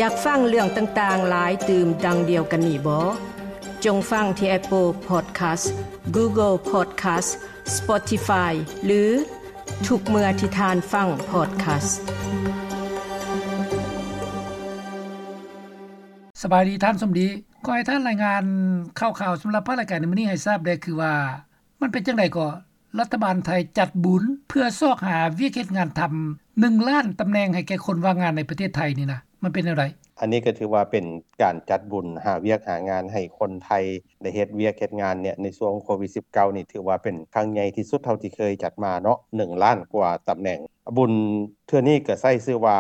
ຢາກຟັງເລື່ອງຕ່າງໆຫຼາຍຕື່ມດັ່ງດຽວກັນນີ້ບໍ? ຈົ່ງຟັງທີ່ Apple Podcast, Google Podcast, Spotify ຫຼື ທຸກເມື່ອທີ່ທ່ານຟັງ podcast. ສະບາຍດີທ່ານສົມດີ. ຂໍໃຫ້ທ່ານລາຍງານຂ່າວໆສຳລັບພາກລາຍການໃນມື້ນີ້ໃຫ້ຊາບແດ່ ຄືວ່າ ມັນເປັນຈັ່ງໃດກໍ ລັດຖະບານໄທຈັດບຸນເພື່ອຊອກຫາວຽກເຮັດງານທຳ ໜຶ່ງລ້ານຕຳແໜ່ງໃຫ້ແກ່ຄົນວ່າງງານໃນປະເທດໄທນີ້ນະ ມັນເປັນແນວໃດ? ອັນນີ້ກໍຖືວ່າເປັນການຈັດບຸນຫາວຽກຫາງານໃຫ້ຄົນໄທໄດ້ເຮັດວຽກເຮັດງານເນຍ ໃນຊ່ວງໂຄວິດສິບເກົ້ານີ້ ຖືວ່າເປັນຄັ້ງໃຫຍ່ທີ່ສຸດເທົ່າທີ່ເຄີຍຈັດມາເນາະ ໜຶ່ງລ້ານກວ່າຕຳແໜ່ງ. ບຸນເທື່ອນີ້ກໍໃຊ້ຊື່ວ່າ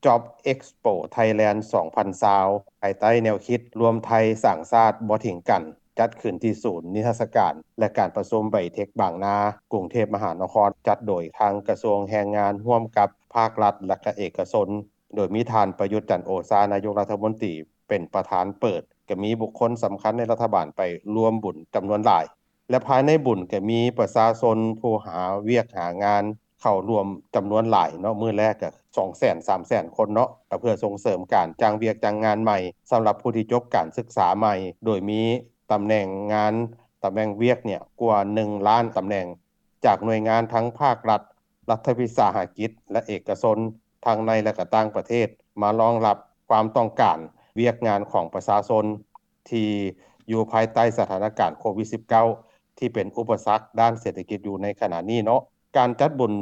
Job Expo Thailand ສອງພັນຊາວ ພາຍໃຕ້ແນວຄິດລວມໄທສ້າງຊາດບໍ່ຖິ້ມກັນ ຈັດຂຶ້ນທີ່ສູນນິທັດສະການ ແລະ ການປະຊຸມໄບເທັກບາງນາ ກຸງເທບມະຫານະຄອນ ຈັດໂດຍທາງກະຊວງແຮງງານ ຮ່ວມກັບພາກລັດ ແລະ ກະເອກະຊົນ ໂດຍມີທ່ານ ປະຍຸດ ຈັນໂອຊາ ນາຍົກລັດຖະມົນຕີ ເປັນປະທານເປີດ, ກະມີບຸກຄົນສຳຄັນໃນລັດຖະບານໄປຮ່ວມບຸນຈຳນວນຫຼາຍ. ແລະ ພາຍໃນບຸນກໍມີປະຊາຊົນຜູ້ຫາວຽກຫາງານເຂົ້າຮ່ວມຈຳນວນຫຼາຍເນາະ, ມື້ແລກກໍສອງແສນ ສາມແສນຄົນເນາະ, ກໍເພື່ອສົ່ງເສີມການຈ້າງວຽກຈ້າງງານໃໝ່ ສຳລັບຜູ້ທີ່ຈົບການສຶກສາໃໝ່, ໂດຍມີຕຳແໜ່ງງານ, ຕຳແໜ່ງວຽກເນຍກວ່າໜຶ່ງລ້ານຕຳແໜ່ງ ຈາກໜ່ວຍງານທັງພາກລັດ, ລັດຖະວິສາຫະກິດ ແລະ ເອກະຊົນ ທັງໃນ ແລະ ກະຕ່າງປະເທດ ມາລອງຮັບຄວາມຕ້ອງການວຽກງານຂອງປະຊາຊົນ ທີ່ຢູ່ພາຍໃຕ້ສະຖານະການໂຄວິດສິບເກົ້າ ທີ່ເປັນອຸປະສັກດ້ານເສດຖະກິດຢູ່ໃນຂະນະນີ້ເນາະ. ການຈັດບຸນ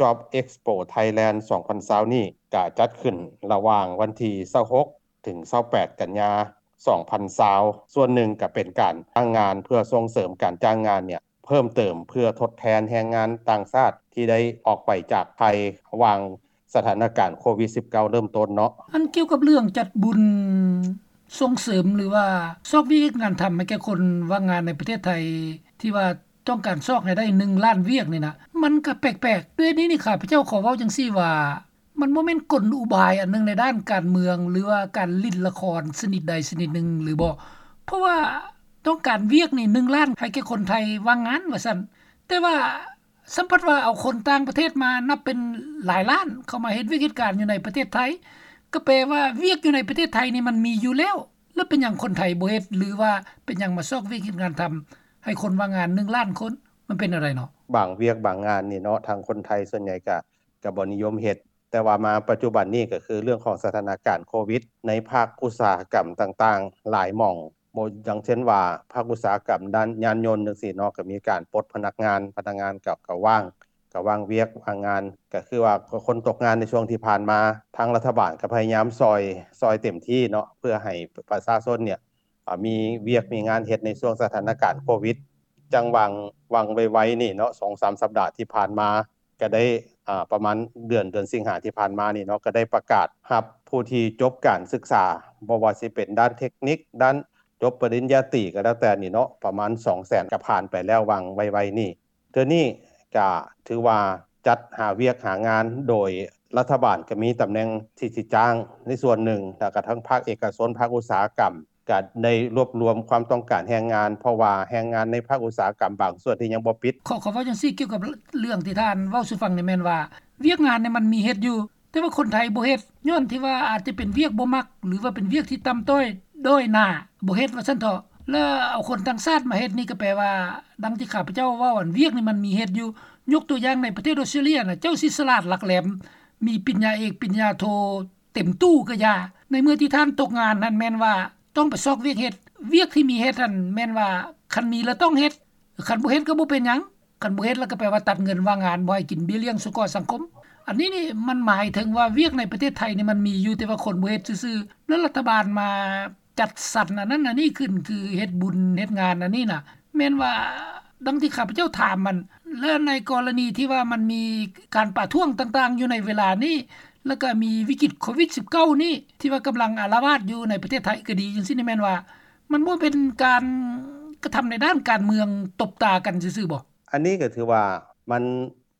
Job Expo Thailand ສອງພັນຊາວນີ້ ກະຈັດຂຶ້ນລະຫວ່າງວັນທີຊາວຫົກ ເຖິງຊາວແປດ ກັນຍາ ສອງພັນຊາວ ສ່ວນໜຶ່ງກະເປັນການຈ້າງງານ ເພື່ອສົ່ງເສີມການຈ້າງງານເນຍ ເພີ່ມເຕີມເພື່ອທົດແທນແຮງງານຕ່າງຊາດທີ່ໄດ້ອອກໄປຈາກໄທ ຫວ່າງສະຖານະການໂຄວິດສິບເກົ້າເລີ່ມຕົ້ນເນາະ. ອັນກ່ຽວກັບເລື່ອງຈັດບຸນສົ່ງເສີມ ຫຼືວ່າຊອກວຽກເຮັດງານທຳໃຫ້ແກ່ຄົນວ່າງງານໃນປະເທດໄທ ທີ່ວ່າຕ້ອງການຊອກໃຫ້ໄດ້ໜຶ່ງລ້ານວຽກນີ້ນະ ມັນກະແປກໆ. ດ້ວຍນີ້ນີ້ ຂ້າພະເຈົ້າຂໍເວົ້າຈັ່ງຊີ້ວ່າ ມັນບໍ່ແມ່ນກົນອຸບາຍອັນໜຶ່ງໃນດ້ານການເມືອງ ຫຼືວ່າການຫຼິ້ນລະຄອນຊະນິດໃດຊະນິດໜຶ່ງຫຼືບໍ່? ເພາະວ່າຕ້ອງການວຽກນີ້ໜຶ່ງລ້ານໃຫ້ແກ່ຄົນໄທວ່າງງານວ່າຊັ້ນ, ແຕ່ວ່າສ່ຳພັດວ່າເອົາຄົນຕ່າງປະເທດມານັບເປັນຫຼາຍລ້ານ ເຂົ້າມາເຮັດວຽກເຮັດການຢູ່ໃນປະເທດໄທ, ກໍແປວ່າວຽກຢູ່ໃນປະເທດໄທນີ້ມັນມີຢູ່ແລ້ວ, ແລ້ວເປັນຫຍັງຄົນໄທບໍ່ເຮັດ ຫຼືວ່າເປັນຫຍັງມາຊອກວຽກເຮັດງານທຳໃຫ້ຄົນວ່າງງານໜຶ່ງລ້ານຄົນ? ມັນເປັນແນວໃດເນາະ? ບາງວຽກບາງງານນີ້ເນາະ ທາງຄົນໄທສ່ວນໃຫຍ່ກະ ກະບໍ່ນິຍົມເຮັດ, ແຕ່ວ່າມາປັດຈຸບັນນີ້ກໍຄືເລື່ອງຂອງສະຖານະການໂຄວິດ ໃນພາກອຸດສາຫະກຳຕ່າງໆຫຼາຍໝ່ອງ, ບໍ່ ຢ່າງເຊັ່ນວ່າພາກອຸດສາຫະກຳດ້ານຍານຍົນຈັ່ງຊີ້ເນາະ ກໍມີການປົດພະນັກງານ, ພະນັກງານກໍ ກໍວ່າງ, ກໍວ່າງວຽກວ່າງງານ, ກໍຄືວ່າຄົນຕົກງານໃນຊ່ວງທີ່ຜ່ານມາ ທາງລັດຖະບານກໍພະຍາຍາມຊ່ອຍ, ຊ່ອຍເຕັມທີ່ເນາະ ເພື່ອໃຫ້ປະຊາຊົນເນຍ ອາ ມີວຽກມີງານເຮັດໃນຊ່ວງສະຖານະການໂຄວິດ. ຈັ່ງຫວ່າງ, ຫວ່າງໄວໆນີ້ເນາະ ສອງສາມສັບດາທີ່ຜ່ານມາ ກະໄດ້ ອາ ປະມານເດືອນ, ເດືອນສິງຫາທີ່ຜ່ານມານີ້ເນາະ ກະໄດ້ປະກາດຮັບຜູ້ທີ່ຈົບການສຶກສາ ບໍ່ວ່າຊິເປັນດ້ານເທັກນິກ, ດ້ານຈົບປະລິນຍາຕີກໍແລ້ວແຕ່ນີ້ເນາະ ປະມານສອງແສນ ກະຜ່ານໄປແລ້ວຫວ່າງໄວໆນີ້. ເທື່ອນີ້ກະຖືວ່າຈັດຫາວຽກຫາງານ ໂດຍລັດຖະບານກະມີຕຳແໜ່ງທີ່ຊິຈ້າງໃນສ່ວນໜຶ່ງ ແລ້ວກະທັງພາກເອກະຊົນ, ພາກອຸດສາຫະກຳ ກະໄດ້ລວບລວມຄວາມຕ້ອງການແຮງງານ ເພາະວ່າແຮງງານໃນພາກອຸດສາຫະກຳບາງສ່ວນທີ່ຍັງບໍ່ປິດ. ຂໍ, ຂໍເວົ້າຈັ່ງຊີ້ ກ່ຽວກັບເລື່ອງທີ່ທ່ານເວົ້າສູ່ຟັງນີ້ແມ່ນວ່າ ວຽກງານນີ້ມັນມີເຮັດຢູ່ ແຕ່ວ່າຄົນໄທບໍ່ເຮັດ ຍ້ອນທີ່ວ່າອາດຈະເປັນວຽກບໍ່ມັກ ຫຼືວ່າເປັນວຽກທີ່ຕ່ຳຕ້ອຍດ້ອຍໜ້າ ບໍ່ເຮັດວ່າຊັ້ນເຖາະ ແລ້ວເອົາຄົນຕ່າງຊາດມາເຮັດນີ້ ກໍແປວ່າ ດັ່ງທີ່ຂ້າພະເຈົ້າເວົ້າ ອັນວຽກນີ້ມັນມີເຮັດຢູ່. ຍົກຕົວຢ່າງໃນປະເທດອອສເຕຣເລຍນະ ເຈົ້າຊິສະຫຼາດຫຼັກແຫຼມ ມີປິນຍາເອກ ປິນຍາໂທ ເຕັມຕູ້ກໍຢ່າ ໃນເມື່ອທີ່ທ່ານຕົກງານຫັ້ນແມ່ນວ່າຕ້ອງໄປຊອກວຽກເຮັດ, ວຽກທີ່ມີເຮັດຫັ້ນແມ່ນວ່າຄັນມີແລ້ວຕ້ອງເຮັດ, ຄັນບໍ່ເຮັດກໍບໍ່ເປັນຫຍັງ, ຄັນບໍ່ເຮັດແລ້ວກໍແປວ່າຕັດເງິນວ່າງງານ ບໍ່ໃຫ້ກິນເບ້ຍລ້ຽງສະເກາະສັງຄົມ. ອັນນີ້ນີ້ມັນໝາຍເຖິງວ່າວຽກໃນປະເທດໄທນີ້ມັນມີຢູ່ ແຕ່ວ່າຄົນບໍ່ເຮັດຊື່ໆ ແລ້ວລັດຖະບານມາຈັດສັນອັນນັ້ນອັນນີ້ຂຶ້ນ ຄືເຮັດບຸນເຮັດງານອັນນີ້ນະ ແມ່ນວ່າ ດັ່ງທີ່ຂ້າພະເຈົ້າຖາມມັນ ແລະ ໃນກໍລະນີທີ່ວ່າມັນມີການປະທ້ວງຕ່າງໆຢູ່ໃນເວລານີ້ ແລ້ວກໍມີວິກິດໂຄວິດສິບເກົ້ານີ້ ທີ່ວ່າກຳລັງອາລະວາດຢູ່ໃນປະເທດໄທກໍດີ ຈັ່ງຊີ້ນີ້ແມ່ນວ່າ ມັນບໍ່ເປັນການກະທຳໃນດ້ານການເມືອງຕົບຕາກັນຊື່ໆບໍ? ອັນນີ້ກໍຖືວ່າມັນ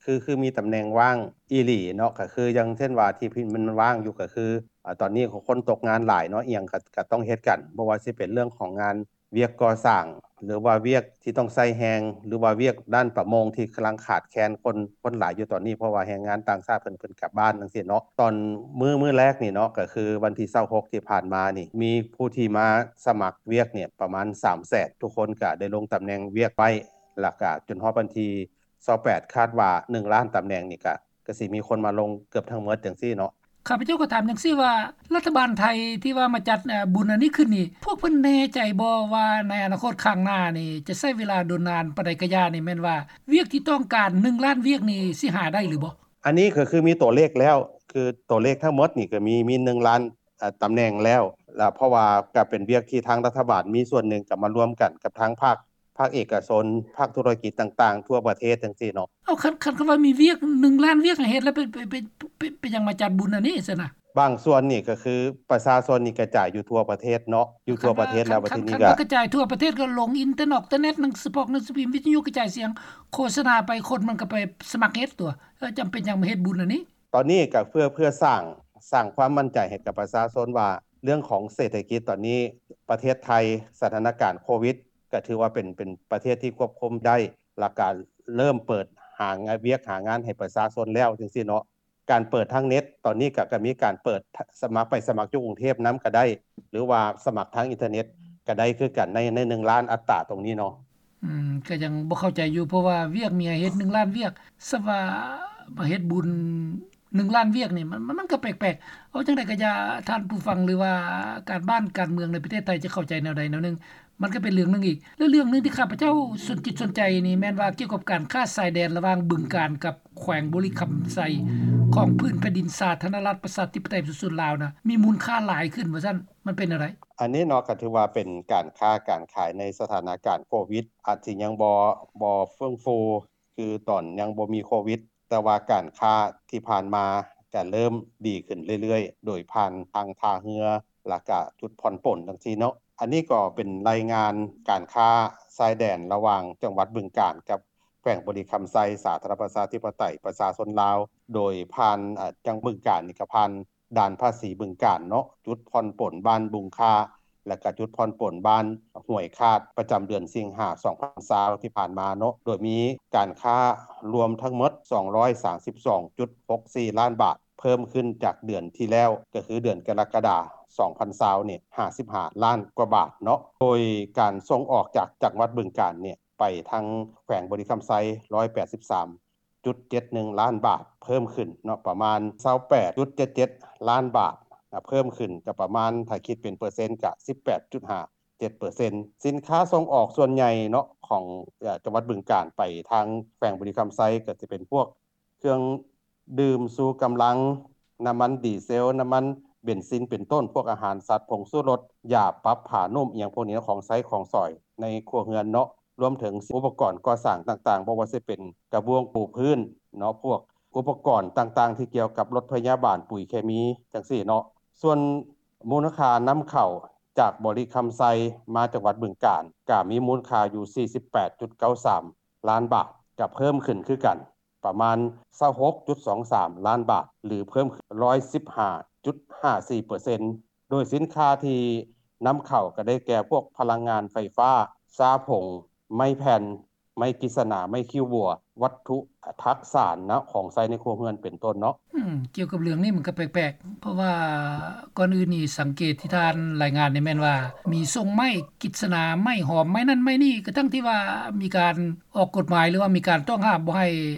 ຄື ຄືມີຕຳແໜ່ງວ່າງອີ່ຫຼີເນາະ ກໍຄືຢ່າງເຊັ່ນວ່າທີ່ມັນວ່າງຢູ່ ກໍຄື ອາ ຕອນນີ້ຄົນຕົກງານຫຼາຍເນາະ ອີ່ຫຍັງກໍ ກໍຕ້ອງເຮັດກັນ ບໍ່ວ່າຊິເປັນເລື່ອງຂອງງານວຽກກໍ່ສ້າງ ຫຼືວ່າວຽກທີ່ຕ້ອງໃຊ້ແຮງ ຫຼືວ່າວຽກດ້ານປະມົງທີ່ກຳລັງຂາດແຄນຄົນ ຄົນຫຼາຍຢູ່ຕອນນີ້ ເພາະວ່າແຮງງານຕ່າງຊາດເພິ່ນ ເພິ່ນກັບບ້ານຈັ່ງຊີ້ເນາະ. ຕອນມື້ ມື້ແລກນີ້ເນາະ ກໍຄືວັນທີຊາວຫົກທີ່ຜ່ານມານີ້ ມີຜູ້ທີ່ມາສະໝັກວຽກນີ້ປະມານສາມແສນ ທຸກຄົນກໍໄດ້ລົງຕຳແໜ່ງວຽກໄວ້ ແລ້ວກໍຈົນຮອດວັນທີຊາວແປດ ຄາດວ່າໜຶ່ງລ້ານຕຳແໜ່ງນີ້ກໍ ກໍຊິມີຄົນມາລົງເກືອບທັງໝົດຈັ່ງຊີ້ເນາະ. ຂ້າພະເຈົ້າກໍຖາມຈັ່ງຊີ້ວ່າ ລັດຖະບານໄທທີ່ວ່າມາຈັດ ເອີ ບຸນອັນນີ້ຂຶ້ນນີ້ ພວກເພິ່ນແນ່ໃຈບໍ່ວ່າໃນອະນາຄົດຂ້າງໜ້ານີ້ ຈະໃຊ້ເວລາດົນນານປານໃດກະຢ່ານີ້ ແມ່ນວ່າວຽກທີ່ຕ້ອງການໜຶ່ງລ້ານວຽກນີ້ຊິຫາໄດ້ຫຼືບໍ່? ອັນນີ້ກໍຄືມີຕົວເລກແລ້ວ ຄືຕົວເລກທັງໝົດນີ້ກໍມີ ມີໜຶ່ງລ້ານ ເອີ ຕຳແໜ່ງແລ້ວ ແລ້ວເພາະວ່າກໍເປັນວຽກທີ່ທາງລັດຖະບານມີສ່ວນໜຶ່ງກໍມາລວມກັນກັບທາງພາກ ພາກເອກະຊົນ ພາກທຸລະກິດຕ່າງໆທົ່ວປະເທດຈັ່ງຊີ້ເນາະ. ເອົາ ຄັນ ຄັນ ຄັນວ່າມີວຽກໜຶ່ງລ້ານວຽກໃຫ້ເຮັດ ແລ້ວເປັນ ເປັນ ເປັນ ເປັນ ເປັນຫຍັງມາຈັດບຸນອັນນີ້ຊັ້ນນະ? ບາງສ່ວນນີ້ກໍຄືປະຊາຊົນນີ້ກະຈາຍຢູ່ທົ່ວປະເທດເນາະ ຢູ່ທົ່ວປະເທດແລ້ວ ບາດທີນີ້ກໍ ຄັນວ່າກະຈາຍທົ່ວປະເທດກໍລົງອິນເຕີເນັດ ເຕີເນັດ ໜັງສືພິມ ໜັງສືພິມ ວິທະຍຸ ກະຈາຍສຽງ ໂຄສະນາໄປ ຄົນມັນກໍໄປສະໝັກເຮັດຕົວະ. ເອີ ຈຳເປັນຫຍັງມາເຮັດບຸນອັນນີ້? ຕອນນີ້ກໍເພື່ອ ເພື່ອສ້າງ ສ້າງຄວາມໝັ້ນໃຈໃຫ້ກັບປະຊາຊົນວ່າ ເລື່ອງຂອງເສດຖະກິດຕອນນີ້ ປະເທດໄທ ສະຖານະການໂຄວິດ ກໍຖືວ່າເປັນ ເປັນປະເທດທີ່ຄວບຄຸມໄດ້ ແລ້ວກໍເລີ່ມເປີດຫາວຽກຫາງານໃຫ້ປະຊາຊົນແລ້ວຈັ່ງຊີ້ເນາະ. ການເປີດທາງເນັດ ຕອນນີ້ກໍ ກໍມີການເປີດສະໝັກ ໄປສະໝັກຢູ່ກຸງເທບນຳກໍໄດ້ ຫຼືວ່າສະໝັກທາງອິນເຕີເນັດກໍໄດ້ຄືກັນ ໃນ ໃນໜຶ່ງລ້ານອັດຕາຕົງນີ້ເນາະ. ອືມ ກໍຍັງບໍ່ເຂົ້າໃຈຢູ່ ເພາະວ່າວຽກມີໃຫ້ເຮັດໜຶ່ງລ້ານວຽກ ສະວ່າມາເຮັດບຸນໜຶ່ງລ້ານວຽກນີ້ ມັນ ມັນ ມັນກໍແປກໆ. ເອົາຈັ່ງໃດກໍຢ່າ ທ່ານຜູ້ຟັງ ຫຼືວ່າການບ້ານການເມືອງໃນປະເທດໄທຈະເຂົ້າໃຈແນວໃດແນວໜຶ່ງ ມັນກໍເປັນເລື່ອງໜຶ່ງອີກ. ແລະເລື່ອງໜຶ່ງທີ່ຂ້າພະເຈົ້າສົນຈິດສົນໃຈນີ້ ແມ່ນວ່າກ່ຽວກັບການຄ້າຊາຍແດນລະຫວ່າງບຶງການກັບແຂວງບໍລິຄຳໄຊ ຂອງພື້ນແຜ່ນດິນສາທາລະນະລັດ ປະຊາທິປະໄຕ ປະຊາຊົນລາວນະ ມີມູນຄ່າຫຼາຍຂຶ້ນວ່າຊັ້ນ ມັນເປັນແນວໃດ? ອັນນີ້ເນາະ ກໍຖືວ່າເປັນການຄ້າການຂາຍໃນສະຖານະການໂຄວິດ ອາດຊິຍັງບໍ່ ບໍ່ເຟື່ອງຟູຄືຕອນຍັງບໍ່ມີໂຄວິດ ແຕ່ວ່າການຄ້າທີ່ຜ່ານມາກະເລີ່ມດີຂຶ້ນເລື້ອຍໆ ໂດຍຜ່ານທາງທ່າເຮືອ ແລ້ວກະຈຸດຜ່ອນປົນຈັ່ງຊີ້ເນາະ. ອັນນີ້ກໍເປັນລາຍງານການຄ້າຊາຍແດນລະຫວ່າງຈັງຫວັດບຶງການກັບແຂວງບໍລິຄຳໄຊ ສາທາລະນະລັດປະຊາທິປະໄຕປະຊາຊົນລາວ ໂດຍຜ່ານ ອາ ຈັ່ງບຶງການນີ້ກໍຜ່ານ ດ່ານພາສີບຶງການເນາະ ຈຸດຜ່ອນປົນບ້ານບຸງຄ້າ ແລະກະຈຸດຜ່ອນປົນບ້ານຫ້ວຍຄາດ ປະຈຳເດືອນສິງຫາ ສອງພັນຊາວ ທີ່ຜ່ານມາເນາະ ໂດຍມີການຄ້າລວມທັງໝົດ ສອງຮ້ອຍສາມສິບສອງຈຸດຫົກສີ່ລ້ານບາດ ເພີ່ມຂຶ້ນຈາກເດືອນທີ່ແລ້ວ ກໍຄືເດືອນກໍລະກະດາ ສອງພັນຊາວນີ້ ຫ້າສິບຫ້າລ້ານກວ່າບາດເນາະ ໂດຍການສົ່ງອອກຈາກຈັງຫວັດບຶງການນີ້ ໄປທາງແຂວງບໍລິຄຳໄຊ ຮ້ອຍແປດສິບສາມຈຸດເຈັດໜຶ່ງລ້ານບາດ ເພີ່ມຂຶ້ນເນາະ ປະມານຊາວແປດຈຸດເຈັດເຈັດລ້ານບາດ ເພີ່ມຂຶ້ນຈະປະມານ ຖ້າຄິດເປັນເປີເຊັນກະສິບແປດຈຸດຫ້າເຈັດເປີເຊັນ. ສິນຄ້າສົ່ງອອກສ່ວນໃຫຍ່ເນາະ ຂອງ ເອີ ຈັງຫວັດບຶງການໄປທາງແຂວງບໍລິຄຳໄຊ ກໍຈະເປັນພວກເຄື່ອງດື່ມຊູກຳລັງ, ນ້ຳມັນດີເຊວ, ນ້ຳມັນເບັນຊິນເປັນຕົ້ນ, ພວກອາຫານສັດ, ຜົງຊູລົດ, ຢາປັບຜ້ານຸ້ມ ອີ່ຫຍັງພວກນີ້ເນາະ, ຂອງໃຊ້ຂອງສອຍໃນຄົວເຮືອນເນາະ. ລວມເຖິງອຸປະກອນກໍ່ສ້າງຕ່າງໆ ບໍ່ວ່າຊິເປັນກະບວງປູພື້ນເນາະ, ພວກອຸປະກອນຕ່າງໆທີ່ກ່ຽວກັບລົດພະຍາບານ, ປຸ໋ຍເຄມີ ຈັ່ງຊີ້ເນາະ. ສ່ວນມູນຄ່ານຳເຂົ້າຈາກບໍລິຄຳໄຊມາຈັງຫວັດບຶງການ ກະມີມູນຄ່າຢູ່ສີ່ສິບແປດຈຸດເກົ້າສາມລ້ານບາດ, ກະເພີ່ມຂຶ້ນຄືກັນ ປະມານຊາວຫົກຈຸດສອງສາມລ້ານບາດ ຫຼື ເພີ່ມຂຶ້ນຮ້ອຍສິບຫ້າຈຸດຫ້າສີ່ເປີເຊັນ. ໂດຍສິນຄ້າທີ່ນຳເຂົ້າກໍໄດ້ແກ່ພວກພະລັງງານໄຟຟ້າ, ຊາຜົງ, ໄມ້ແຜ່ນ, ໄມ້ກິດສະໜາ, ໄມ້ຄິ້ວບົວ, ວັດຖຸທາດສານເນາະ ຂອງໃຊ້ໃນຄົວເຮືອນເປັນຕົ້ນເນາະ. ອືມ ກ່ຽວກັບເລື່ອງນີ້ມັນກໍແປກໆ ເພາະວ່າກ່ອນອື່ນນີ້ສັງເກດທີ່ທ່ານລາຍງານນີ້ແມ່ນວ່າ ມີຊົງໄມ້ກິດສະໜາ, ໄມ້ຫອມ, ໄມ້ນັ້ນໄມ້ນີ້ ກະທັ່ງທີ່ວ່າມີການອອກກົດໝາຍ ຫຼືວ່າມີການຕ້ອງຫ້າມບໍ່ໃຫ້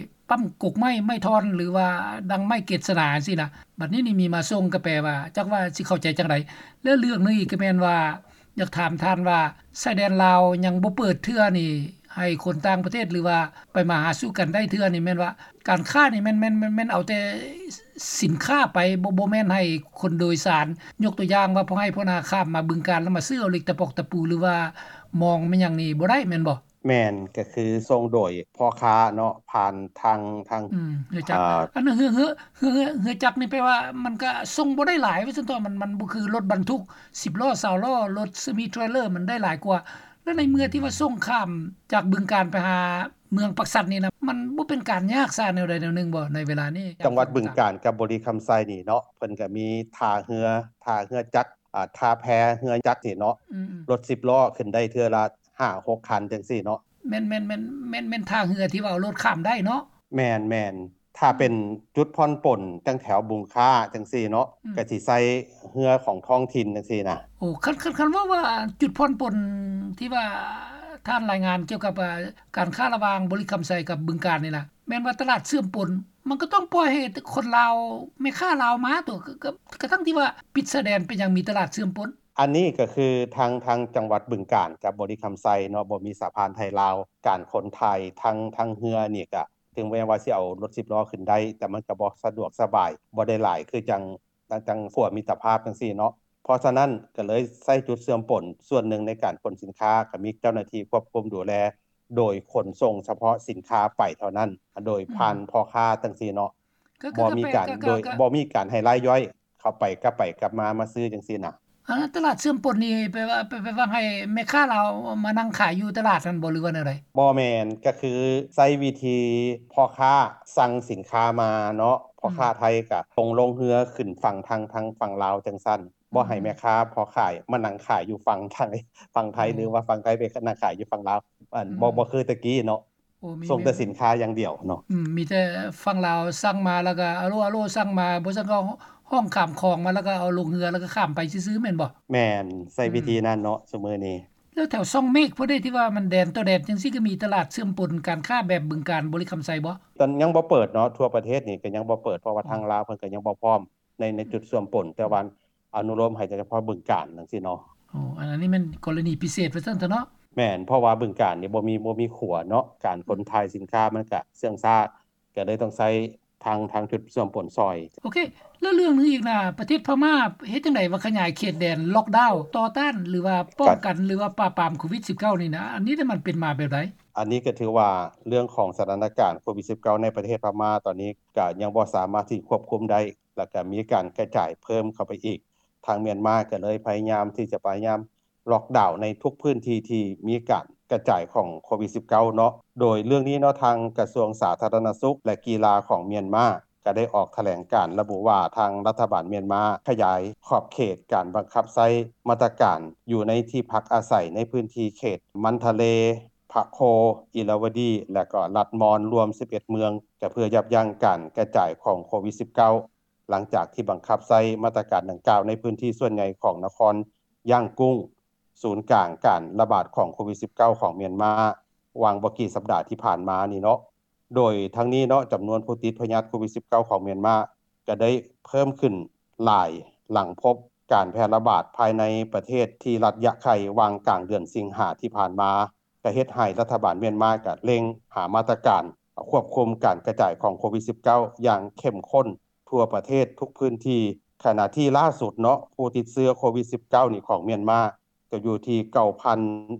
ປ້ຳກົກໄມ້, ໄມ້ທ່ອນ ຫຼືວ່າດັງໄມ້ເກດສະໜາຈັ່ງຊີ້ນະ. ບັດນີ້ນີ້ມີມາສົ່ງ ກໍແປວ່າ ຈັກວ່າຊິເຂົ້າໃຈຈັ່ງໃດ. ແລະເລື່ອງໜຶ່ງອີກກໍແມ່ນວ່າ ຢາກຖາມທ່ານວ່າ ຊາຍແດນລາວຍັງບໍ່ເປີດເທື່ອນີ້ ໃຫ້ຄົນຕ່າງປະເທດ ຫຼືວ່າໄປມາຫາສູ່ກັນໄດ້ເທື່ອນີ້ ແມ່ນວ່າການຄ້ານີ້ແມ່ນ ແມ່ນ ແມ່ນ ແມ່ນເອົາແຕ່ສິນຄ້າໄປ ບໍ່ ບໍ່ແມ່ນໃຫ້ຄົນໂດຍສານ. ຍົກຕົວຢ່າງວ່າ ພວກໃຫ້ພວກນາຂ້າມມາບຶງການ ແລ້ວມາຊື້ເອົາເຫຼັກຕະປອກຕະປູ ຫຼືວ່າມອງແມ່ນຫຍັງນີ້ບໍ່ໄດ້ແມ່ນບໍ່? ແມ່ນ ກໍຄືສົ່ງໂດຍພໍ່ຄ້າເນາະ ຜ່ານທາງ ທາງ ອືມ ເຮືອຈັກ ອາ ອັນເຮືອ ເຮືອ ເຮືອ ເຮືອ ເຮືອຈັກນີ້ແປວ່າມັນກະສົ່ງບໍ່ໄດ້ຫຼາຍວ່າຊັ້ນເຖາະ ມັນ ມັນບໍ່ຄືລົດບັນທຸກສິບລໍ້ ຊາວລໍ້ ລົດເຊມີເທຣລເລີ ມັນໄດ້ຫຼາຍກວ່າ. ແລ້ວໃນເມື່ອທີ່ວ່າສົ່ງຂ້າມຈາກບຶງການໄປຫາເມືອງປາກຊັນນີ້ນະ ມັນບໍ່ເປັນການຍາກຊະແນວໃດແນວໜຶ່ງບໍ່ ໃນເວລານີ້? ຈັງຫວັດບຶງການກັບບໍລິຄຳໄຊນີ້ເນາະ ເພິ່ນກະມີທ່າເຮືອ ທ່າເຮືອຈັກ ອາ ທ່າແພເຮືອຈັກນີ້ເນາະ ອືມໆ ລົດສິບລໍ້ຂຶ້ນໄດ້ເທື່ອລະ ຫ້າຫົກຄັນຈັ່ງຊີ້ເນາະ. ແມ່ນໆໆ ແມ່ນ ແມ່ນ ແມ່ນທ່າເຮືອທີ່ວ່າເອົາລົດຂ້າມໄດ້ເນາະ? ແມ່ນໆ ຖ້າເປັນຈຸດຜ່ອນປົນຈັ່ງແຖວບຸງຄ້າຈັ່ງຊີ້ເນາະ ອືມ ກໍຊິໃຊ້ເຮືອຂອງທ້ອງຖິ່ນຈັ່ງຊີ້ນະ. ໂອ້ ຄັນ ຄັນ ຄັນເວົ້າວ່າຈຸດຜ່ອນປົນທີ່ວ່າທ່ານລາຍງານກ່ຽວກັບ ອ່າ ການຄ້າລະຫວ່າງບໍລິຄຳໄຊກັບບຶງການນີ້ນະ ແມ່ນວ່າຕະຫຼາດເຊື່ອມປົນ ມັນກໍຕ້ອງປ່ອຍໃຫ້ຄົນລາວ ແມ່ຄ້າລາວມາຕົວະ ກໍ ກໍ ກໍທັງທີ່ວ່າປິດຊາຍແດນ ເປັນຫຍັງມີຕະຫຼາດເຊື່ອມປົນ? ອັນນີ້ກໍຄືທາງ ທາງຈັງຫວັດບຶງການກັບບໍລິຄຳໄຊເນາະ ບໍ່ມີສະພານໄທລາວ ການຂົນຖ່າຍທາງ ທາງເຮືອນີ້ກະ ເຖິງແມ່ນວ່າຊິເອົາລົດສິບລໍ້ຂຶ້ນໄດ້ ແຕ່ມັນກໍບໍ່ສະດວກສະບາຍ ບໍ່ໄດ້ຫຼາຍຄືຈັ່ງ ຈັ່ງ ຈັ່ງຂົວມິດຕະພາບຈັ່ງຊີ້ເນາະ. ເພາະສະນັ້ນກໍເລີຍໃຊ້ຈຸດເຊື່ອມປົນສ່ວນໜຶ່ງໃນການຂົນສິນຄ້າ ກໍມີເຈົ້າໜ້າທີ່ຄວບຄຸມດູແລ ໂດຍຂົນສົ່ງສະເພາະສິນຄ້າໄປເທົ່ານັ້ນ ໂດຍຜ່ານ ອືມ ພໍ່ຄ້າຈັ່ງຊີ້ເນາະ. ກໍ ກໍ ບໍ່ມີການ ກໍ ໂດຍ ກໍ ບໍ່ມີການໃຫ້ລາຍຍ່ອຍ ເຂົ້າໄປກັບໄປກັບມາ ມາຊື້ຈັ່ງຊີ້ນະ. ອາ ຕະຫຼາດເຊື່ອມປົນນີ້ ແປວ່າ ແປ ແປວ່າໃຫ້ແມ່ຄ້າລາວມານັ່ງຂາຍຢູ່ຕະຫຼາດຫັ້ນບໍ່ ຫຼືວ່າແນວໃດ? ບໍ່ແມ່ນ ກໍຄືໃຊ້ວິທີພໍ່ຄ້າສັ່ງສິນຄ້າມາເນາະ ພໍ່ຄ້າ ອືມ ໄທກໍສົ່ງລົງເຮືອຂຶ້ນຝັ່ງທາງ ທາງຝັ່ງລາວຈັ່ງຊັ້ນ ອືມ ບໍ່ໃຫ້ແມ່ຄ້າພໍ່ຂາຍມານັ່ງຂາຍຢູ່ຝັ່ງໄທ ຝັ່ງໄທ ອືມ ຫຼືວ່າຝັ່ງໄທໄປນັ່ງຂາຍຢູ່ຝັ່ງລາວ ອັນ ອືມ ບໍ່ ບໍ່ຄືແຕ່ກີ້ເນາະ. ໂອ້ ມີ ສົ່ງແຕ່ສິນຄ້າຢ່າງດຽວເນາະ. ອືມ ມີແຕ່ຝັ່ງລາວສັ່ງມາ ແລ້ວກໍອາໂລ ອາໂລ ສັ່ງມາ ບໍ່ຊັ້ນກໍຮ້ອງຂ້າມຂອງມາ ແລ້ວກໍເອົາລົງເຮືອ ແລ້ວກໍຂ້າມໄປຊື່ໆ ແມ່ນບໍ່? ແມ່ນ ໃຊ້ ອືມ ວິທີນັ້ນເນາະ ຊຸມື້ນີ້. ແລ້ວແຖວຊ່ອງເມກພຸ້ນເດ ທີ່ວ່າມັນແດນຕໍ່ແດນຈັ່ງຊີ້ ກໍມີຕະຫຼາດເຊື່ອມປົນການຄ້າແບບບຶງການ ບໍລິຄຳໄຊບໍ່? ຕອນຍັງບໍ່ເປີດເນາະ ທົ່ວປະເທດນີ້ກໍຍັງບໍ່ເປີດ ເພາະວ່າ ອືມ ທາງລາວເພິ່ນກໍຍັງບໍ່ພ້ອມໃນ ໃນຈຸດເຊື່ອມປົນ ແຕ່ວ່າ ອະນຸໂລມໃຫ້ແຕ່ສະເພາະບຶງການຈັ່ງຊີ້ເນາະ. ໂອ້ ອັນ ອັນນີ້ແມ່ນກໍລະນີພິເສດວ່າຊັ້ນເຖາະເນາະ. ແມ່ນ ເພາະວ່າບຶງການນີ້ບໍ່ມີ ບໍ່ມີຂົວເນາະ ການຂົນ ອືມ ຖ່າຍສິນຄ້າມັນກະເຊື່ອງຊ້າ ກໍເລີຍຕ້ອງໃຊ້ທາງ ທາງຈຸດເຊື່ອມປົນຊ່ອຍ. ໂອເຄ ແລ້ວເລື່ອງໜຶ່ງອີກນະ ປະເທດພະມ້າເຮັດຈັ່ງໃດວ່າຂະຫຍາຍເຂດແດນ ລ໊ອກດາວ ຕໍ່ຕ້ານ ຫຼືວ່າປ້ອງກັນ ກະ ຫຼືວ່າປາບປາມໂຄວິດສິບເກົ້ານີ້ນະ ອັນນີ້ນະມັນເປັນມາແບບໃດ? ອັນນີ້ກໍຖືວ່າເລື່ອງຂອງສະຖານະການໂຄວິດສິບເກົ້າໃນປະເທດພະມ້າຕອນນີ້ ກະຍັງບໍ່ສາມາດທີ່ຄວບຄຸມໄດ້ ແລ້ວກະມີການກະຈາຍເພີ່ມເຂົ້າໄປອີກ. ທາງມຽນມາກໍເລີຍພະຍາຍາມທີ່ຈະພະຍາຍາມລ໊ອກດາວໃນທຸກພື້ນທີ່ທີ່ມີການກະຈາຍຂອງໂຄວິດສິບເກົ້າເນາະ. ໂດຍເລື່ອງນີ້ເນາະ ທາງກະຊວງສາທາລະນະສຸກ ແລະ ກິລາຂອງມຽນມາ ກໍໄດ້ອອກຖະແຫຼງການລະບຸວ່າ ທາງລັດຖະບານມຽນມາຂະຫຍາຍຂອບເຂດການບັງຄັບໃຊ້ມາດຕະການຢູ່ໃນທີ່ພັກອາໄສໃນພື້ນທີ່ເຂດມັນທະເລ, ພະໂຄ, ອິລາວະດີ ແລະ ກໍລັດມອນ ລວມສິບເອັດເມືອງ ກໍເພື່ອຢັບຢັ້ງການກະຈາຍຂອງໂຄວິດສິບເກົ້າ. ຫຼັງຈາກທີ່ບັງຄັບໃຊ້ມາດຕະການດັ່ງກ່າວໃນພື້ນທີ່ສ່ວນໃຫຍ່ຂອງນະຄອນຢ້າງກຸ້ງ ສູນກາງການລະບາດຂອງໂຄວິດສິບເກົ້າຂອງມຽນມາ ຫວ່າງບໍ່ກີ່ສັບດາທີ່ຜ່ານມານີ້ເນາະ. ໂດຍທັງນີ້ເນາະ ຈຳນວນຜູ້ຕິດພະຍາດໂຄວິດສິບເກົ້າຂອງມຽນມາກໍໄດ້ເພີ່ມຂຶ້ນຫຼາຍ ຫຼັງພົບການແຜ່ລະບາດພາຍໃນປະເທດທີ່ລັດຢະໄຂ່ ຫວ່າງກາງເດືອນສິງຫາທີ່ຜ່ານມາ ກໍເຮັດໃຫ້ລັດຖະບານມຽນມາກໍເລັ່ງຫາມາດຕະການຄວບຄຸມການກະຈາຍຂອງໂຄວິດສິບເກົ້າຢ່າງເຂັ້ມຂຸ້ນທົ່ວປະເທດທຸກພື້ນທີ່. ຂະນະທີ່ລ່າສຸດເນາະ ຜູ້ຕິດເຊື້ອໂຄວິດສິບເກົ້ານີ້ຂອງມຽນມາ ກໍຢູ່ທີ່ເກົ້າພັນ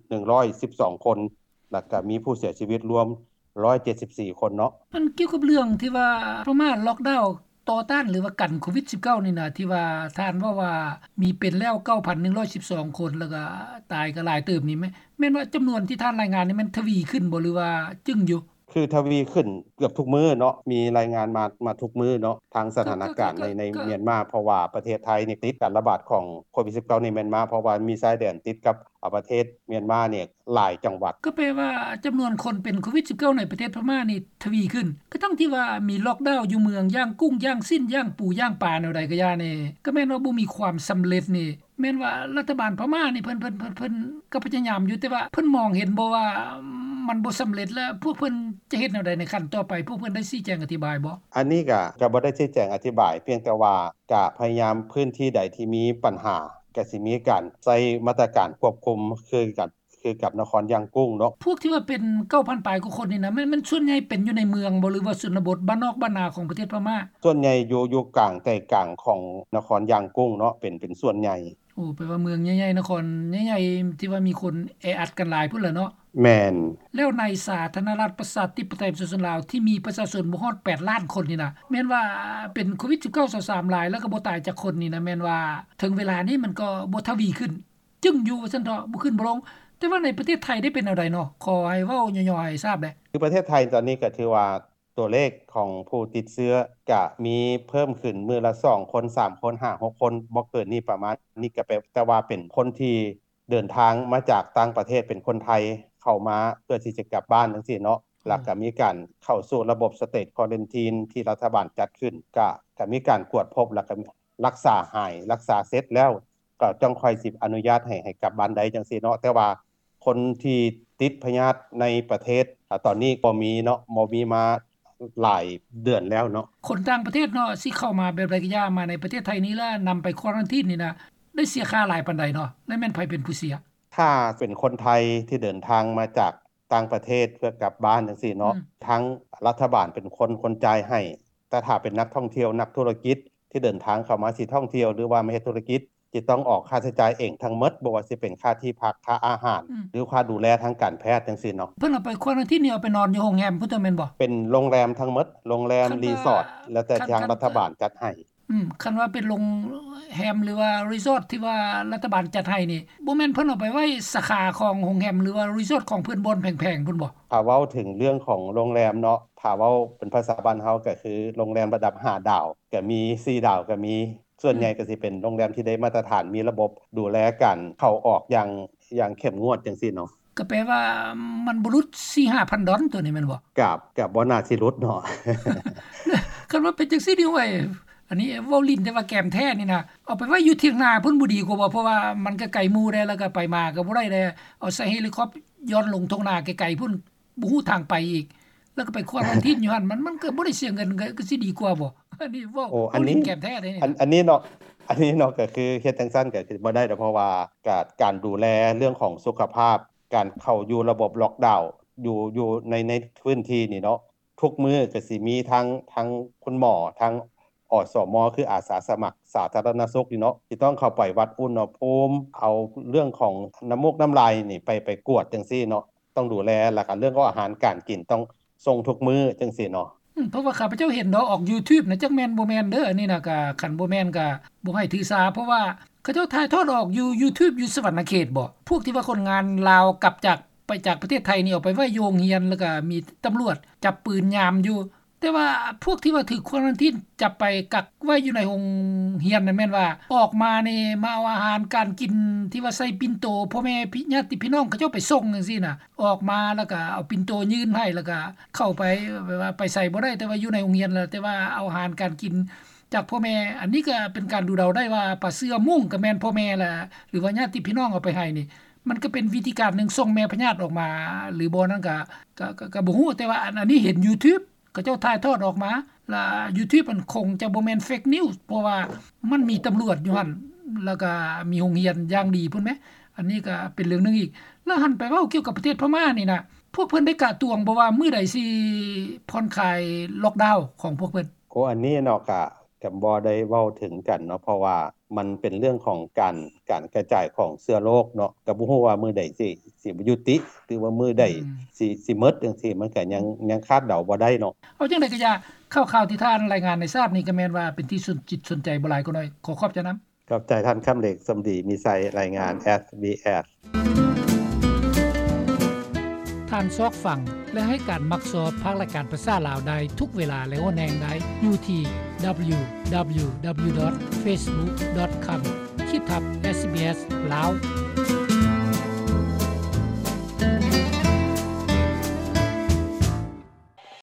ໜຶ່ງຮ້ອຍສິບສອງຄົນ ແລ້ວກໍມີຜູ້ເສຍຊີວິດລວມຮ້ອຍເຈັດສິບສີ່ຄົນເນາະ. ມັນກ່ຽວກັບເລື່ອງທີ່ວ່າພະມ້າລ໊ອກດາວຕໍ່ຕ້ານ ຫຼືວ່າກັນໂຄວິດສິບເກົ້ານີ້ນະ ທີ່ວ່າທ່ານເວົ້າວ່າມີເປັນແລ້ວເກົ້າພັນໜຶ່ງຮ້ອຍສິບສອງຄົນ ແລ້ວກໍຕາຍກໍຫຼາຍເຕີບນີ້ ແມ່ນ ແມ່ນວ່າຈຳນວນທີ່ທ່ານລາຍງານນີ້ແມ່ນທະວີຂຶ້ນບໍ່ ຫຼືວ່າຈຶ້ງຢູ່? ຄືທະວີຂຶ້ນເກືອບທຸກມື້ເນາະ ມີລາຍງານມາ ມາທຸກມື້ເນາະ ທາງສະຖານະການໃນ ໃນມຽນມາ ເພາະວ່າປະເທດໄທນີ້ຕິດການລະບາດຂອງໂຄວິດສິບເກົ້າໃນມຽນມາ ເພາະວ່າມີຊາຍແດນຕິດກັບ ອາ ປະເທດມຽນມານີ້ຫຼາຍຈັງຫວັດ. ກໍແປວ່າຈຳນວນຄົນເປັນໂຄວິດສິບເກົ້າໃນປະເທດພະມ້ານີ້ທະວີຂຶ້ນ ກະທັງທີ່ວ່າມີລ໊ອກດາວຢູ່ເມືອງ ຢ່າງກຸ້ງ ຢ່າງຊິ້ນ ຢ່າງປູ ຢ່າງປາ ແນວໃດກະຢ່ານີ້ ກະແມ່ນວ່າບໍ່ມີຄວາມສຳເລັດນີ້ ແມ່ນວ່າລັດຖະບານພະມ້ານີ້ເພິ່ນ ເພິ່ນ ເພິ່ນ ເພິ່ນກໍພະຍາຍາມຢູ່ ແຕ່ວ່າເພິ່ນມອງເຫັນບໍ່ວ່າມັນບໍ່ສຳເລັດ ແລະ ພວກເພິ່ນຈະເຮັດແນວໃດໃນຂັ້ນຕໍ່ໄປ? ພວກເພິ່ນໄດ້ຊີ້ແຈງອະທິບາຍບໍ່? ອັນນີ້ກະ ກະບໍ່ໄດ້ຊີ້ແຈງອະທິບາຍ ພຽງແຕ່ວ່າກະພະຍາຍາມພື້ນທີ່ໃດທີ່ມີບັນຫາ ກະຊິມີການໃຊ້ມາດຕະການຄວບຄຸມຄືກັນ ຄືກັບນະຄອນຢ່າງກຸ້ງເນາະ. ພວກທີ່ວ່າເປັນເກົ້າພັນປາຍກວ່າຄົນນີ້ນະ ແມ່ນ ແມ່ນສ່ວນໃຫຍ່ເປັນຢູ່ໃນເມືອງບໍ່ ຫຼືວ່າຊົນນະບົດ ບ້ານນອກບ້ານນາຂອງປະເທດພະມ້າ? ສ່ວນໃຫຍ່ຢູ່ ຢູ່ກາງໃຈກາງຂອງນະຄອນຢ່າງກຸ້ງເນາະ ເປັນ ເປັນສ່ວນໃຫຍ່. ໂອ້ ແປວ່າເມືອງໃຫຍ່ໆ ນະຄອນໃຫຍ່ໆ ທີ່ວ່າມີຄົນແອອັດກັນຫຼາຍພຸ້ນລະເນາະ. ແມ່ນ. ແລ້ວໃນສາທາລະນະລັດປະຊາທິປະໄຕປະຊາຊົນລາວ ທີ່ມີປະຊາຊົນບໍ່ຮອດແປດລ້ານຄົນນີ້ນະ ແມ່ນວ່າເປັນໂຄວິດສິບເກົ້າຊາວສາມຫຼາຍ ແລ້ວກໍບໍ່ຕາຍຈັກຄົນນີ້ນະ ແມ່ນວ່າເຖິງເວລານີ້ມັນກໍບໍ່ທະວີຂຶ້ນ ຈຶ່ງຢູ່ວ່າຊັ້ນເຖາະ ບໍ່ຂຶ້ນບໍ່ລົງ. ແຕ່ວ່າໃນປະເທດໄທໄດ້ເປັນແນວໃດເນາະ? ຂໍໃຫ້ເວົ້າຫຍໍ້ໆໃຫ້ຊາບແດ່. ຄືປະເທດໄທຕອນນີ້ກໍຖືວ່າຕົວເລກຂອງຜູ້ຕິດເຊື້ອກະມີເພີ່ມຂຶ້ນມື້ລະສອງຄົນ ສາມຄົນ ຫ້າ ຫົກຄົນ ບໍ່ເກີນນີ້ ປະມານນີ້ ກະແປ ແຕ່ວ່າເປັນຄົນທີ່ ເດີນທາງມາຈາກຕ່າງປະເທດ ເປັນຄົນໄທເຂົ້າມາເພື່ອທີ່ຈະກັບບ້ານຈັ່ງຊີ້ເນາະ ແລ້ວກໍມີການເຂົ້າສູ່ລະບົບ State Quarantine ທີ່ລັດຖະບານຈັດຂຶ້ນ ກໍ ກໍມີການກວດພົບ ແລ້ວກໍ ລັກສາຫາຍ ລັກສາເສັດແລ້ວ ກໍຈັ່ງຄ່ອຍຊິອະນຸຍາດໃຫ້ ໃຫ້ກັບບ້ານໄດ້ຈັ່ງຊີ້ເນາະ. ແຕ່ວ່າຄົນທີ່ຕິດພະຍາດໃນປະເທດ ອາ ຕອນນີ້ບໍ່ມີເນາະ ບໍ່ມີມາຫຼາຍເດືອນແລ້ວເນາະ. ຄົນຕ່າງປະເທດເນາະ ຊິເຂົ້າມາແບບໃດກໍຢ່າ ມາໃນປະເທດໄທນີ້ ແລ້ວນຳໄປຄວາຣັນທີນນີ້ນະ ໄດ້ເສຍຄ່າຫຼາຍປານໃດເນາະ ແລະແມ່ນໃຜເປັນຜູ້ເສຍ? ຖ້າເປັນຄົນໄທທີ່ເດີນທາງມາຈາກຕ່າງປະເທດເພື່ອກັບບ້ານຈັ່ງຊີ້ເນາະ ອືມ ທາງລັດຖະບານເປັນຄົນ ຄົນຈ່າຍໃຫ້. ແຕ່ຖ້າເປັນນັກທ່ອງທ່ຽວ ນັກທຸລະກິດທີ່ເດີນທາງເຂົ້າມາຊິທ່ອງທ່ຽວ ຫຼືວ່າມາເຮັດທຸລະກິດ ຈະຕ້ອງອອກຄ່າໃຊ້ຈ່າຍເອງທັງໝົດ ບໍ່ວ່າຊິເປັນຄ່າທີ່ພັກ ຄ່າອາຫານ ອືມ ຫຼືຄ່າດູແລທາງການແພດຈັ່ງຊີ້ເນາະ. ເພິ່ນເອົາໄປຄວາຣັນທີນນີ້ ເອົາໄປນອນຢູ່ໂຮງແຮມພຸ້ນຕົວະແມ່ນບໍ່? ເປັນໂຮງແຮມທັງໝົດ ໂຮງແຮມ ຄັນວ່າ ຣີສອດ ແລ້ວແຕ່ ຄັນ ທາງ ຄັນ ລັດຖະບານຈັດໃຫ້. ອືມ ຄັນວ່າເປັນໂຮງແຮມ ຫຼືວ່າຣີສອດທີ່ວ່າລັດຖະບານຈັດໃຫ້ນີ້ ບໍ່ແມ່ນເພິ່ນເອົາໄປໄວ້ສາຂາຂອງໂຮງແຮມ ຫຼືວ່າຣີສອດຂອງເພິ່ນ ບ່ອນແພງໆພຸ້ນບໍ່? ຖ້າເວົ້າເຖິງເລື່ອງຂອງໂຮງແຮມເນາະ ຖ້າເວົ້າເປັນພາສາບ້ານເຮົາກໍຄືໂຮງແຮມລະດັບຫ້າດາວ ກໍມີສີ່ດາວ ກໍມີ ສ່ວນໃຫຍ່ ອືມ ກໍຊິເປັນໂຮງແຮມທີ່ໄດ້ມາດຕະຖານ ມີລະບົບດູແລການເຂົ້າອອກຢ່າງ ຢ່າງເຂັ້ມງວດຈັ່ງຊີ້ເນາະ. ກໍແປວ່າມັນບໍ່ຫຼຸດສີ່ຫ້າພັນດອນຕົວນີ້ແມ່ນບໍ່? ກໍ ກໍບໍ່ໜ້າຊິຫຼຸດເນາະ. ຄັນວ່າເປັນຈັ່ງຊີ້ນີ້ ໂອ້ຍ ອັນນີ້ເວົ້າຫຼິ້ນ ແຕ່ວ່າແກມແທ້ນີ້ນະ ເອົາໄປໄວ້ຢູ່ຖຽງນາພຸ້ນບໍ່ດີກວ່າບໍ່? ເພາະວ່າມັນກໍໄກໝູ່ແດ່ ແລ້ວກໍໄປມາກໍບໍ່ໄດ້ແດ່ ເອົາໃສ່ເຮລິຄອບຍ້ອນລົງທົ່ງນາໄກໆພຸ້ນ ບໍ່ຮູ້ທາງໄປອີກ ແລ້ວກໍໄປຄວາຣັນທີນຢູ່ຫັ້ນ ມັນ ມັນກໍບໍ່ໄດ້ເສຍເງິນ ກໍ ກໍຊິດີກວ່າບໍ່? ອັນນີ້ເວົ້າ ໂອ້ ອັນນີ້ ເວົ້າຫຼິ້ນແກມແທ້ເດ້ນີ້ ອັນ ອັນນີ້ເນາະ ອັນນີ້ເນາະ ກໍຄືເຮັດຈັ່ງຊັ້ນກໍຄືບໍ່ໄດ້ດອກ ເພາະວ່າການ ການດູແລເລື່ອງຂອງສຸຂະພາບ ການເຂົ້າຢູ່ລະບົບລັອກດາວ ຢູ່ ຢູ່ໃນ ໃນພື້ນທີ່ນີ້ເນາະ ທຸກມື້ກໍຊິມີທັງ ທັງຄຸນໝໍ ທັງ ອສມ ຄືອາສາສະໝັກສາທາລະນະສຸກນີ້ເນາະ ທີ່ຕ້ອງເຂົ້າໄປວັດອຸນຫະພູມ ເອົາເລື່ອງຂອງນ້ຳມູກນ້ຳລາຍນີ້ໄປ ໄປກວດຈັ່ງຊີ້ເນາະ ຕ້ອງດູແລ ແລ້ວກໍເລື່ອງຂອງອາຫານການກິນຕ້ອງສົ່ງທຸກມື້ຈັ່ງຊີ້ເນາະ. ອືມ ເພາະວ່າຂ້າພະເຈົ້າເຫັນເນາະ ອອກ YouTube ນະ ຈັກແມ່ນບໍ່ແມ່ນເດີ ອັນນີ້ນະ ກໍຄັນບໍ່ແມ່ນກໍບໍ່ໃຫ້ຖືສາ ເພາະວ່າເຂົາເຈົ້າຖ່າຍທອດອອກຢູ່ YouTube ຢູ່ສະຫວັນນະເຂດບໍ? ພວກທີ່ວ່າຄົນງານລາວກັບຈາກ ໄປຈາກປະເທດໄທນີ້ ເອົາໄປໄວ້ຢູ່ໂຮງຮຽນ ແລ້ວກໍມີຕຳຫຼວດຈັບປືນຍາມຢູ່. ແຕ່ວ່າພວກທີ່ວ່າຖືກຄວາຣັນທີນຈັບໄປກັກໄວ້ຢູ່ໃນໂຮງຮຽນນັ້ນ ແມ່ນວ່າອອກມານີ້ ມາເອົາອາຫານການກິນທີ່ວ່າໃສ່ປິ່ນໂຕ ພໍ່ແມ່ພີ່ ຍາດຕິພີ່ນ້ອງເຂົາເຈົ້າໄປສົ່ງຈັ່ງຊີ້ນະ ອອກມາແລ້ວກໍເອົາປິ່ນໂຕຍື່ນໃຫ້ ແລ້ວກໍເຂົ້າໄປ ແບບວ່າໄປໃສບໍ່ໄດ້ ແຕ່ວ່າຢູ່ໃນໂຮງຮຽນແລ້ວ ແຕ່ວ່າເອົາອາຫານການກິນຈາກພໍ່ແມ່. ອັນນີ້ກໍເປັນການດູເດົາໄດ້ວ່າ ປາເສືອມຸ້ງກໍແມ່ນພໍ່ແມ່ລະ ຫຼືວ່າຍາດຕິພີ່ນ້ອງເອົາໄປໃຫ້ນີ້ ມັນກໍເປັນວິທີການໜຶ່ງສົ່ງແມ່ພະຍາດອອກມາ ຫຼືບໍ່ນັ້ນກໍ ກໍ ກໍ ກໍບໍ່ຮູ້ ແຕ່ວ່າອັນ ອັນນີ້ເຫັນ YouTube ເຂົາເຈົ້າຖ່າຍທອດອອກມາ ລະ YouTube ມັນຄົງຈະບໍ່ແມ່ນ fake news ເພາະວ່າມັນມີຕຳຫຼວດຢູ່ຫັ້ນ ແລ້ວກໍມີໂຮງຮຽນຢ່າງດີພຸ້ນແມ. ອັນນີ້ກໍເປັນເລື່ອງໜຶ່ງອີກ. ລະຫັນໄປເວົ້າກ່ຽວກັບປະເທດພະມ້ານີ້ນະ ພວກເພິ່ນໄດ້ກະຕວງບໍ່ວ່າມື້ໃດຊິຜ່ອນຄາຍລັອກດາວຂອງພວກເພິ່ນ? ໂອ ອັນນີ້ເນາະ ກະ ກະບໍ່ໄດ້ເວົ້າເຖິງກັນເນາະ ເພາະວ່າມັນເປັນເລື່ອງຂອງການ ການກະຈາຍຂອງເຊື້ອໂລກເນາະ ກະບໍ່ຮູ້ວ່າມື້ໃດຊິ ຊິຍຸຕິ ຫຼືວ່າມື້ໃດ ອືມ ຊິ ຊິໝົດຈັ່ງຊີ້ ມັນກະຍັງ ຍັງຄາດເດົາບໍ່ໄດ້ເນາະ. ເອົາຈັ່ງໃດກໍຢ່າ ຂ່າວໆທີ່ທ່ານລາຍງານໃນຊາດນີ້ ກໍແມ່ນວ່າເປັນທີ່ສົນຈິດສົນໃຈບໍ່ຫຼາຍກໍໜ້ອຍ. ຂໍຂອບໃຈນຳ. ຂອບໃຈທ່ານ ຄຳເລັກ ສົມດີ ມີໄຊ ລາຍງານ ເອສບີເອສ. ທ່ານຊອກຟັງ ແລະ ໃຫ້ການມັກຊອບພາກລາຍການພາສາລາວໄດ້ທຸກເວລາ ແລະ ຫົວແຮງໄດ້ຢູ່ທີ່ www.facebook.com/sbslao.